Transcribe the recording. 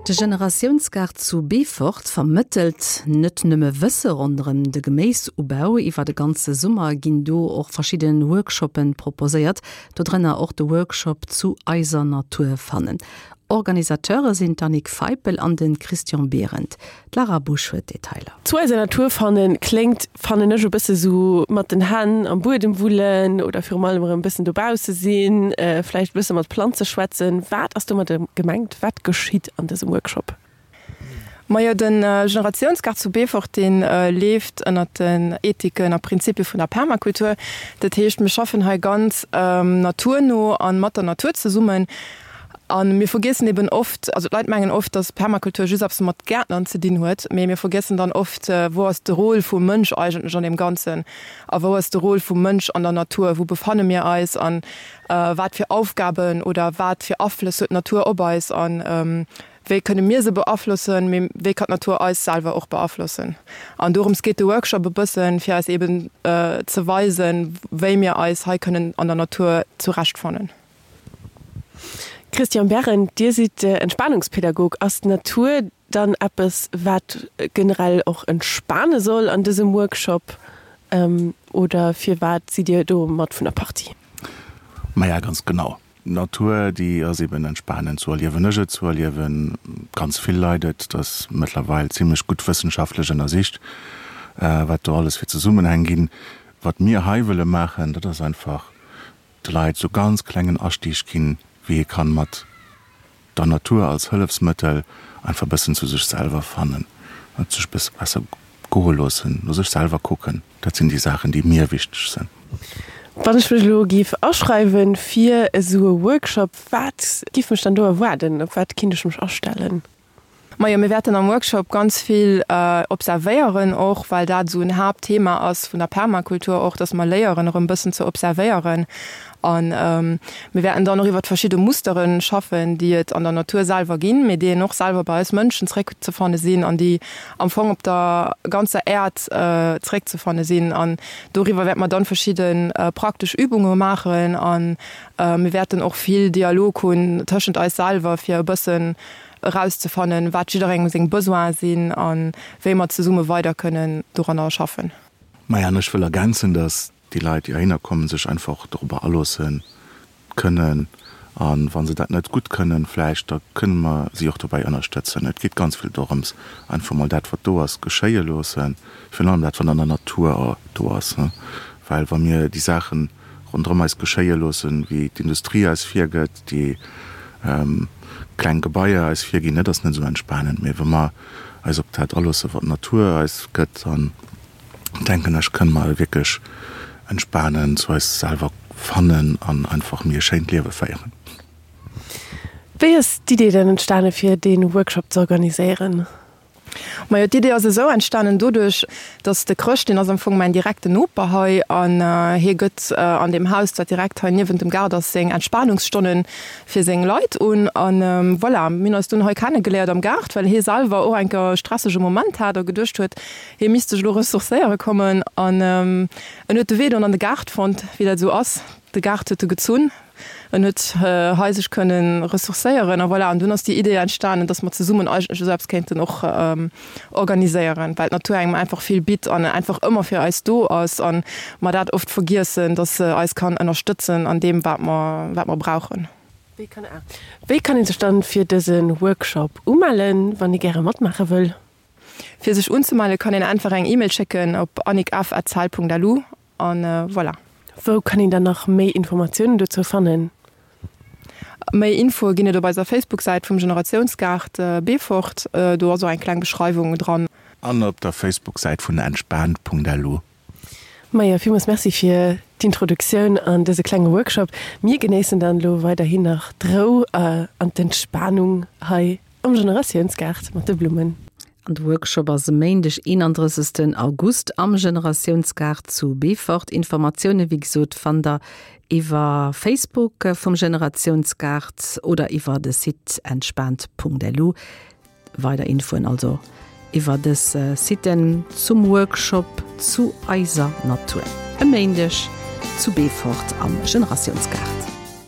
De Generatiounsgaart zu Beefort vermëttelt net nëmme Wësse ronderëm de Geméisubau. Iwwer de ganze Summer ginn do och verschidde Workshoppe proposéiert, dodrënner och de Workshop Zu eiser Natur fannen. Organisateure sinn d'Annick Feipel an de Christian Behrendt. D'Lara Busch huet d'Detailer. Zu eiser Natur fannen kléngt, fannen ech, e bësse sou mat den Hänn am Buedem wullen oder virum allem erëm e bëssen dobausse sinn, vläicht e bësse mat Planze schwätzen. Wat ass domadder gemengt? Wat geschitt an dësem Workshop? Majo, de Generatiounsgaart zu Beefort, dee leeft ënnert den Ethiken a Prinzipie vun der Permakultur. Dat heescht, mir schaffen hei ganz naturno a mat der Natur zesummen. A mir vergiessen eben oft, also d'Leit mengen oft, datt Permakultur just eppes mat Gäertnern ze dinn huet, mee mir vergiessen dann oft, wou ass de Rôle vum Mënsch eigentlech an deem Ganzen a wou ass de Rôle vum Mënsch an der Natur, wou befanne mir eis a wat fir Aufgaben oder wat fir Aflëss huet d'Natur op eis a wéi kënne mir se beaflossen, mee wéi kann d'Natur eis selwer och beaflossen. An dorëms geet de Workshop e bëssen, fir eis eben ze weisen, wéi mir eis hei kënnen an der Natur zurechtfannen. Christian Berrend, Dir sidd Entspanungspädagog. Ass d'Natur dann eppes, wat generell och entspane soll an dësem Workshop oder firwat sidd Dir do mat vun der Partie? Maja, ganz genau. D'Natur, déi ass eben entspanend, sou erliewen ech et, sou erliewe ganz vill Leit et. Et ass mëttlerweil zimlech gutt wëssenschaftlech ënnersicht, wat do alles fir Zesummenhäng ginn. Wat mir hei wëlle maachen, dat ass einfach de Leit sou ganz klengen Astieg ginn, wéi ee kann mat der Natur als Hëllefsmëttel einfach bëssen zu sech selwer fannen, et sech bësse besser goe loossen, no sech selwer kucken. Dat sinn déi Saachen, déi mir wichteg sinn. Wann ech mech elo géif aschreiwen fir esou e Workshop, wat giff mech dann do erwaarden? Op wat kinnt ech mech astellen? Majo, mir wäerten am Workshop ganz vill observéieren och, well dat esou en Haaptthema ass vun der Permakultur och, dass mer léieren erëm bëssen ze observéieren. A mir wäerten dann och iwwert verschidde Mustere schaffen, déi et an der Natur selwer ginn, mee déi een och selwer bei eis Mënschen zréckzefanne sinn an déi am Fong op der ganzer Äerd zréckzefanne sinn. An doriwwer wäerte mer dann verschidde praktesch Übunge maachen a mir wäerten och vill Dialog hunn tëschent eis selwer, fir e bëssen erauszefannen, wat jidderengem seng Besoine sinn a wéi mer zesumme weider kënnen doranner schaffen. Maja, an ech wëll ergänzen, dass déi Leit, déi heihinner kommen, sech einfach dorobber aloosse kënnen. A wa se dat net gutt kënnen vläicht, da kënne mer si och dobäi ënnerstëtzen. Et geet ganz vill dorëms, einfach mol dat, wat do ass, geschéie loossen, virun allem dat, wat an der Natur do ass. Well wa mir déi Saachen ronderëm eis geschéie loossen, wéi d'Industrie eis virgëtt, déi kleng Gebaier eis virginn, dat ass net esou entspanend. Mee wa mer eis op dat aloossen, wat d'Natur eis gëtt, dann denken ech, kënne mer wierklech entspanen, zu eis selwer fannen an einfach méi e schéint Liewe féieren. Wéi ass d'Idee dann entstane fir dee Workshop ze organiséieren? Majo, d'Idee ass esou entstanen doduerch, dass de Chrëscht, deen ass am Fong mäin direkten Noper hei an hie gëtt an deem Haus, dat direkt hei niewent dem Gaart ass, seng Entspanungsstonnen fir seng Leit un. An voilà, mir hunn eis dunn hei kennegeléiert am Gaart, well hie selwer och eng Kéier e stressege Moment hat a geduecht huet, hie misst sech elo ressourcéiere kommen. An en huet de Wee dunn an de Gaart fonnt, wéi dat esou ass, de Gaart huet e gezunn. En huet hei sech kënnen ressourcéieren a voilà. An dunn ass déi Idee entstanen, dass mer zesummen eigentlech esou eppes kéinten och organiséieren, well d'Natur engem einfach vill bitt an einfach ëmmer fir eis do ass an mer dat oft vergiessen, dass se eis kann ënnerstëtzen an deem, wat mer, wat mer brauchen. Wéi kann ee sech dann fir dëse Workshop umellen, wann ee gäre matmaache wëll? Fir sech unzemelle kann een einfach eng E-Mail schécken op annickf@cell.lu An voilà. Wou kann een dann nach méi Informatiounen dozou fannen? Méi Infoe ginn et op eiser Facebook-Säit vum Generatiounsgaart Beefort. Do ass och eng kleng Beschreiwung dran. An op der Facebook-Säit vun entspaant.lu. Maja, villmools Merci fir d'Introduktioun an dëse klenge Workshop. Mir genéissen dann elo weiderhin nach d'Rou an d'Entspanung hei Am Generatiounsgaart mat de Blummen. An de Workshop ass e Méindeg 31 August am Generatiounsgaart zu Beefort. Informatioune wéi gesot fannt der iwwer Facebook vum Generatiounsgaart oder iwwer de Site entspaant.lu. Weider Infoen also iwwer dës Siten zum Workshop Zu eiser Natur e Méindeg zu Beefort am Generatiounsgaart.